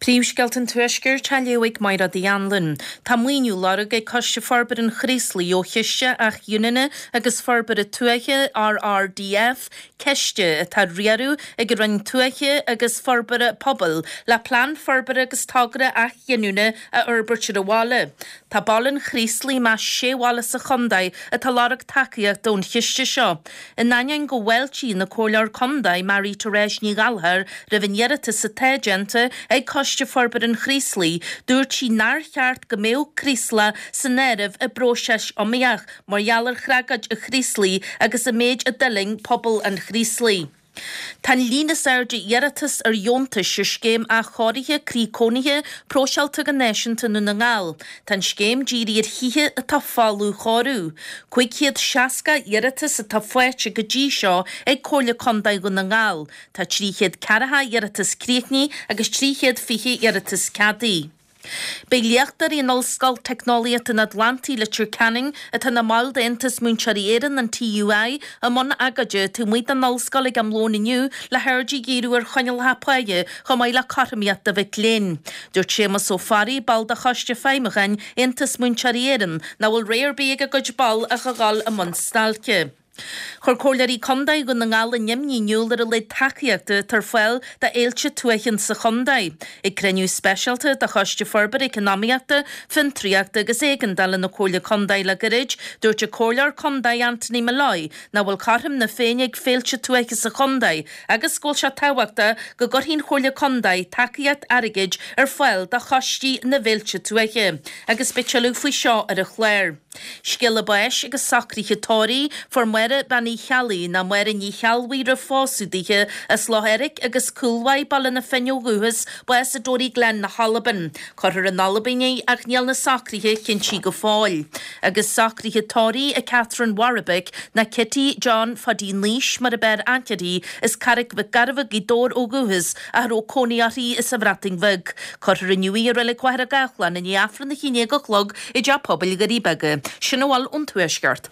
Príomhscéalta an Tuaiscirt á léamh ag Mairéad Uí Anluain. Tá maoiniú á lorg ag Coiste Forbartha an Chraoslaigh ó Chiste Athghiniúna agus Forbartha Tuaithe, RRDF, ciste atá á riaradh ag an Roinn Tuaithe agus Forbartha Pobail, le plean forbartha agus togra athghiniúna a fhorbairt ar an bhaile. Tá baile an Chraoslaigh i measc sé bhaile sa chontae atá ag lorg tacaíochta ón chiste seo. In ainneoin go bhfáiltíonn an Comhairleoir Contae Marie Therese Ní Ghallchóir roimh an iarratas atá déanta ag Coiste Forbartha an Chraoslaigh, dúirt sí nár cheart go mbeadh Craoslach san áireamh i bpróiseas iomaíoch mar gheall ar thragóid an Chraoslaigh agus an méid a d'fhulaing pobal an Chraoslaigh. Tá an líon is airde iarratas ar dheontais ar Scéim Athchóirithe Croí Cónaithe próiseáilte go náisiúnta i nDún na nGall. Tá an scéim dírithe ar thithe atá folamh chóiriú. 560 iarratas atá faighte go dtí seo ag Comhairle Contae Dhún na nGall. Tá 340 iarratas críochnaithe agus 320 iarratas ceadaithe. Beidh léachtóirí in Ollscoil Teicneolaíochta an Atlantaigh, Leitir Ceanainn, atá ina mbaill d'Aontas Múinteoirí Éireann, an TUI, i mbun agóide taobh amuigh den ollscoil ag am lóin inniu le haird a dhíriú ar choinníollacha páighe chomh maith le cothromaíocht do mhic léinn. Dúirt Séamus Ó Fearraigh, ball de Choiste Feidhmiúcháin Aontas Múinteoirí Éireann, nach bhfuil rogha ar bith ag a gcuid ball ach a dhul i mbun stailce. Chuir Comhairleoirí Contae Dhún na nGall a n-imní in iúl ar a laghad tacaíochta atá ar fáil do fhéilte tuaithe sa chontae. Ag cruinniú speisialta de Choiste Forbartha Eacnamaíochta, Fiontraíochta agus Éigeandála na Comhairle Contae le gairid, dúirt an Comhairleoir Contae Anthony Molloy nach bhfuil cothrom na Féinne ag féilte tuaithe sa chontae agus go bhfuil sé tábhachtach go gcuirfidh an Chomhairle Contae tacaíocht airgid ar fáil do choistí na bhféilte tuaithe. Agus beidh tuilleadh faoi seo ar an chlár. Scéala báis agus socruithe tórraimh, Fuair Máire Bean Uí Cheallaigh, nó Máire Ní Cheallbhuí roimh phósadh dithe, as Loch Eirc agus Cúil Mhaigh, Baile na Finne ó dhúchas, bás i Toryglen na hAlban. Cuirfear in Albain í ach níl na socruithe cinntithe go fóill. Agus socruithe tórraimh ag Catherine Warwick, nó Kitty John Phaidí Naois mar ab fhearr aithne uirthi, as Carraig Mhic Gairbheith, Gaoth Dobhair ó dhúchas, ach a raibh cónaí uirthi sa Bhreatain Bheag. Cuirfear inniu í i Reilig Mhachaire Gathlán i ndiaidh Aifreann a haon déag a chlog i dTeach Pobail Dhoirí Beaga. Sin a bhfuil ón Tuaisceart.